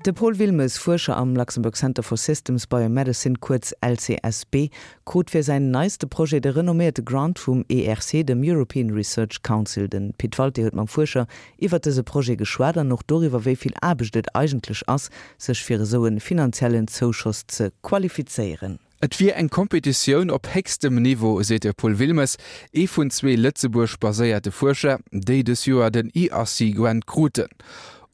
De Paul Wilmes, Fuerscher am Luxembourg Center for Systems Biomedicine, kuerz LCSB, krut fir säin neiste Projet de renomméierte Grant vum ERC, dem European Research Council. De Pit Walté huet mam Fuerscher iwwert dëse Projet geschwat an och doriwwer, wéi vill Aarbecht et eigentlech ass, sech fir esou e finanziellen Zouschoss ze qualifizéieren. Et wier eng Kompetitioun op héchstem Niveau, seet de Paul Wilmes, ee vun zwee Lëtzebuerg-baséierte Fuerscher, déi dës Joer den ERC Grant kruten.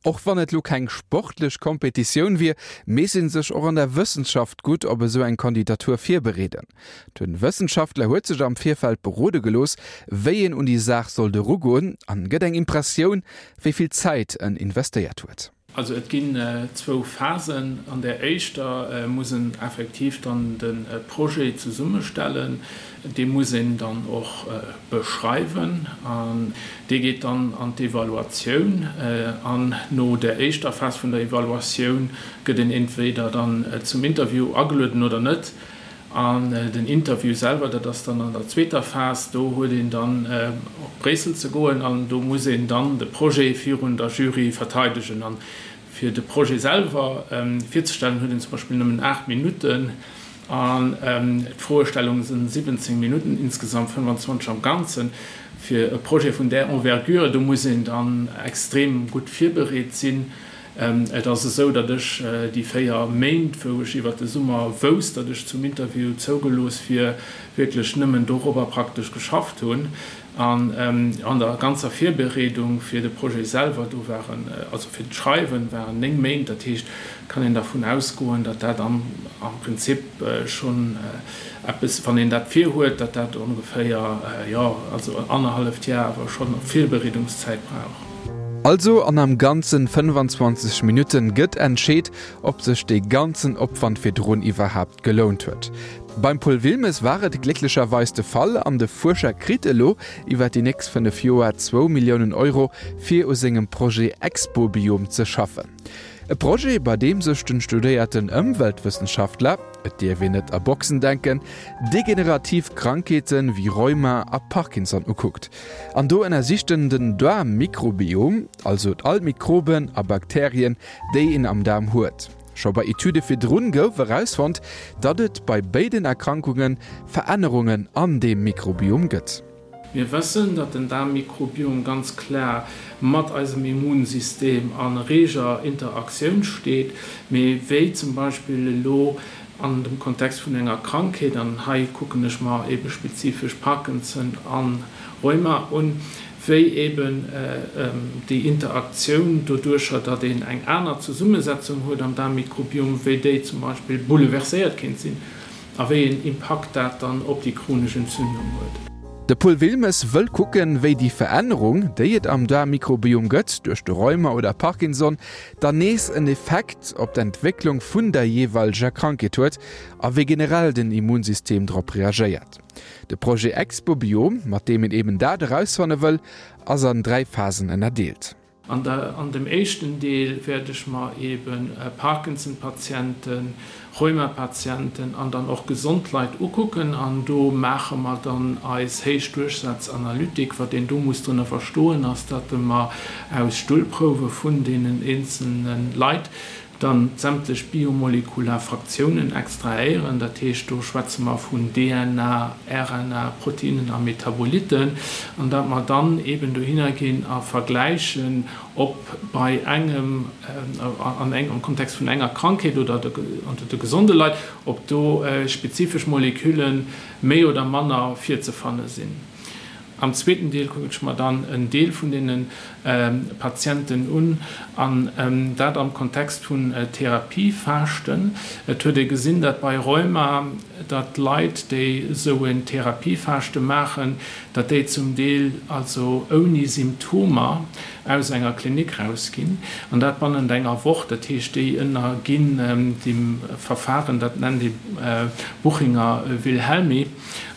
Och wann et lo keng sportlech Kompetitioun wier, misst ee sech och an der Wëssenschaft gutt op esou eng Kandidatur virbereeden. De Wëssenschaftler huet sech am Virfeld berode gelooss, wéi een un déi Saach sollt erugoen an gëtt eng Impressioun, wéi vill Zäit en investéiert huet. Also et ginn zwou Phasen. An där éischter muss en effektiv dann de Projet zesummestellen. Dee muss een dann och beschreiwen an dee geet dann an d'Evaluatioun. An no där éischter Phas vun der Evaluatioun gëtt een entweder dann zum Interview agelueden oder net. An den Interview selwer, dat ass dann an der zweeter Phas, do huet een dann op Bréissel ze goen an do muss een dann de Projet virun der Jury verteidegen. An fir de Projet selwer virzestellen, huet een zum Beispill nëmmen 8 Minutten an d'Froestellung sinn 17 Minutten, insgesamt 25 am Ganzen. Fir e Projet vun där Envergure, do muss een dann extrem gutt virbereet sinn. Et ass esou, datt ech déi 4 Méint, wou ech iwwert de Summer wousst, datt ech zum Interview zougelooss wier, wierklech nëmmen dorobber praktesch geschafft hunn. An an der ganzer Virbereedung fir de Projet selwer, do waren, also fir d'Schreiwen, waren 9 Méint. Dat heescht, et kann een dervun ausgoen, datt dat am Prinzip schonn eppes, wann een dat virhuet, datt dat ongeféier, jo, also annerhalleft Jar awer schonn Virbereedungszäit brauch. Also an am ganzen 25 Minutten gëtt entscheet, ob sech dee ganzen Opwand virdrun iwwerhaapt gelount huet. Beim Paul Wilmes war et glécklecherweis de Fall an de Fuerscher kritt elo iwwer déi nächst 5 Joer zwou Milliounen Euro fir u sengem Projet Expobiom ze schaffen. E Projet, bei deem sech den studéierten Ëmweltwëssenschaftler, et dierf een net a Boxen denken, degenerativ Krankheete wéi Rheuma a Parkinson ukuckt. An do ënnersicht en den Daarmmikrobiom, also all d'Mikroben a Bakterien, déi een am Daarm huet. Scho bei Etüde virdrun gouf erausfonnt, datt et bei béiden Erkrankunge Verännerungen an deem Mikrobiom gëtt. Mir wëssen, datt den Daarmmikrobiom ganz klar mat eisem Immunsystem a reger Interaktioun steet. Mee wéi zum Beispill elo an dem Kontext vun enger Krankheet, an hei kucken ech mer ebe spezifesch Parkinson a Rheuma un, wéi eben déi Interaktioun doduercher, datt een eng aner Zesummesetzung huet am Daarmmikrobiom, wéi déi zum Beispill bouleverséiert kéint sinn a wéi een Impakt dat dann op déi chronesch Entzündung huet. De Paul Wilmes wëll kucken, wéi déi Verännerung, déi et am Daarmmikrobiom gëtt, duerch de Rheuma oder Parkinson, dann nees en Effekt op d'Entwécklung vun der jeeweileger Krankheet huet a wéi generell den Immunsystem drop reagéiert. De Projet Expobiom, mat deem een eben dat erausfanne wëll, ass an 3 Phasen ënnerdeelt. An der an dem éischten Deel wäert ech mer eben Parkinson-Patienten, Rheumapatienten an dann och gesond Leit ukucken an do maache mer dann eis Héichdurchsazanalytik. Wat een do muss drënner verstoen ass, datt mer aus Stullprouwe vun deenen eenzelne Leit dann sämtlech biomolekular Fraktiounen extrahéieren. Dat heescht, do schwätze mer vun DNA, RNA, Proteinen a Metaboliten an datt mer dann eeben dohinner ginn a vergläichen, ob bei engem, an engem, am Kontext vun enger Krankheet oder unter de gesonde Leit, ob do spezifesch Molekülle méi oder manner virzefanne sinn. Am zweeten Deel kucken ech mer dann en Deel vun deene Patienten un, an dat am Kontext vun Therapiefaaschten. Et huet ee gesinn, datt bei Rheuma, datt Leit, déi esou en Therapiefaaschte maachen, datt déi zum Deel also ouni Symptomer aus enger Klinik rausginn, an dat bannent enger Woch. Dat heescht, déi ënnerginn deem Verfahren, dat nennt ee Buchinger-Wilhelmi.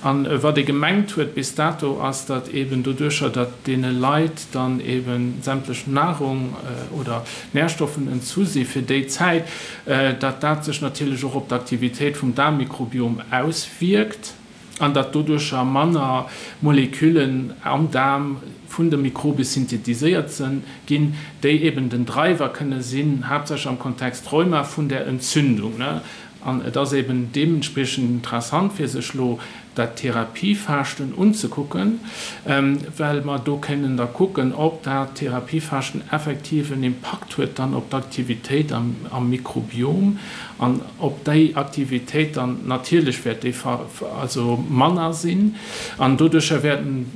An wat ee gemengt huet bis dato, ass, datt eeben doduercher, datt deene Leit dann eebe sämtlech Nahrung oder Nährstoffen entzu si fir déi Zäit, datt dat sech natierlech och op d'Aktivitéit vum Daarmmikrobiom auswierkt. an datt doduercher manner Moleküllen am Daarm vun de Mikrobe synthetiséiert ginn, déi eben den Driver kënne sinn, haaptsächlech am Kontext Rheuma, vun där Entzündung. An et ass eben deementspriechend interessant, fir sech elo dat Therapiefaaschten unzekucken, well mer do kënnen da kucken, ob dat Therapiefaaschten effektiv en Impakt huet dann op d'Aktivitéit am Mikrobiom an ob déi Aktivitéit dann, natierlech wäert déi also manner sinn an doduercher wäerten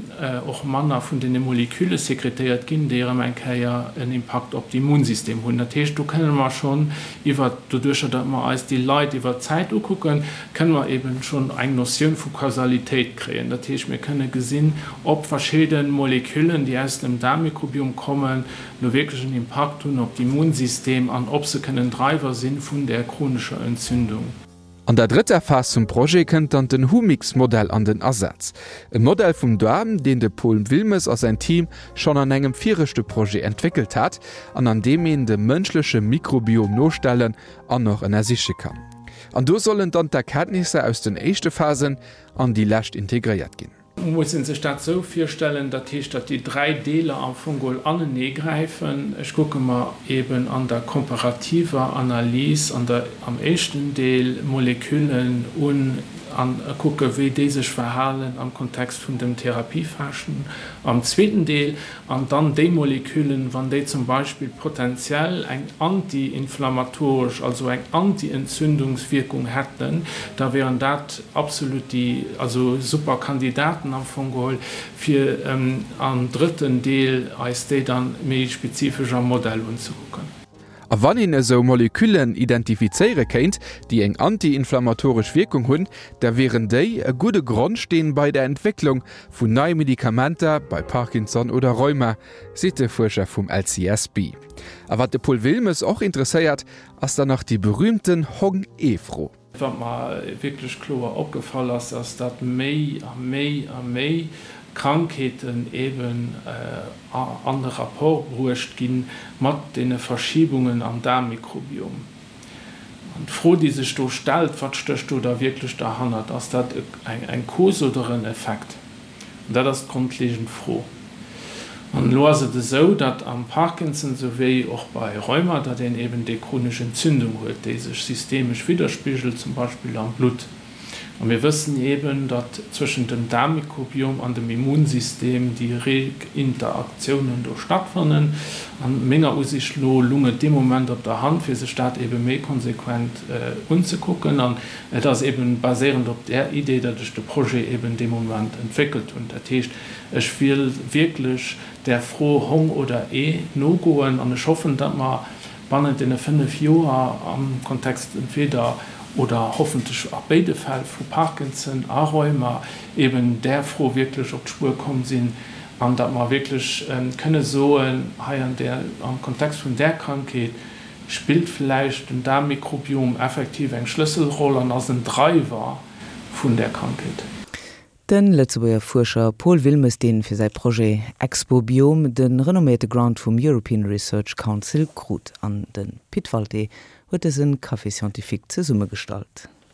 och manner vun deene Moleküle sekretéiert ginn, déi erëm eng Kéier en Impakt op d'Immunsystem hunn. Dat heescht, do kënne mer schonn iwwer, doduercher datt mer eis déi Leit iwwer d'Zäit ukucken, kënne mer eben schonn eng Notioun vu Kausalitéit kréien. Dat heescht, mir kënne gesinn, ob verschidde Moleküllen, déi aus dem Daarmmikrobiom kommen, elo wierklech en Impakt hunn op d'Immunsystem an ob se kënnen Driver si vun där chronescher Entzündung. An der drëtter Phas vum Projet kënnt dann den Humix-Modell an den Asaz. E Modell vum Daarm, deen de Paul Wilmes a säin Team schonn an engem viregte Projet entwéckelt hat an an deem een de mënschleche Mikrobiom nostellen an och ënnersiche kann. An do sollen dann d'Erkenntnisser aus den éischte Phasen an déi lescht integréiert ginn. Muss een sech dat esou virstellen, dat heescht, datt déi 3 Deeler am Fong geholl anenee gräifen. Ech kucke mer eben an der komparativer Analys an der, am éischten Deel Moleküllen un an kucke wéi déi sech verhalen am Kontext vun dem Therapiefaaschten am zweeten Deel an dann déi Moleküllen, wann déi zum Beispill potenziell eng anti-inflammatoresch, also eng anti-Entzündungswierkung hätten, da wären dat absolut déi, also super Kandidaten am Fong geholl, fir am drëtten Deel eis déi dann méi spezifesch am Modell unzekucken. A wann een esou Moleküllen identifizéiere kéint, déi eng anti-inflammatoresch Wierkung hunn, da wieren déi e gudde Grondsteen bei der Entwécklung vun neie Medikamenter bei Parkinson oder Rheuma, seet de Fuerscher vum LCSB. A wat de Paul Wilmes och interesséiert, ass dann nach déi berüümten Hong-Ee-Fro. Wat mer wierklech kloer opgefall ass, ass, datt méi a méi a méi Krankheeten eeben an de Rapport bruecht gi mat deene Verschibungen am Daarmmikrobiom. An d'Fro, déi sech do stellt, Wat stécht do da wierklech derhannert? Ass dat eng Cause oder en Effekt? An dat ass d'grondlegend Fro. An elo ass et esou, datt am Parkinson souwéi och bei Rheuma, datt een eben déi chronesch Entzündung huet, déi sech systemesch widderspigelt, zum Beispill am Blutt. A mir wëssen eben, datt zwëschent dem Daarmmikrobiom an dem Immunsystem déi reg Interaktiounen do stattfannen. An menger Usicht no lung et dee Moment op der Hand, fir sech dat ebe méi konsequent unzekucken. An et ass eben baséierend op där Idee, datt ech de Projet eben dee Moment entwéckelt hunn. Dat heescht, ech wiel wierklech där Fro Hong oder Ee nogoen an ech hoffen, datt mer bannent deene 5 Joer am Kontext entweder oder hoffentlech a béide Fäll vu Parkinson a Rheuma eben där Fro wierklech op d'Spuer komm sinn an datt mer wierklech kënne soen, hei an där, am Kontext vun där Krankheet spillt vläicht den Daarmmikrobiom effektiv eng Schlësselroll an ass en Driver vun där Krankheet. De Lëtzebuerger Fuerscher Paul Wilmes, dee fir säi Projet Expobiom de renomméierte Grant vum European Research Council krut. An de Pit Walté huet dëse Café Scientifique zesummegestallt.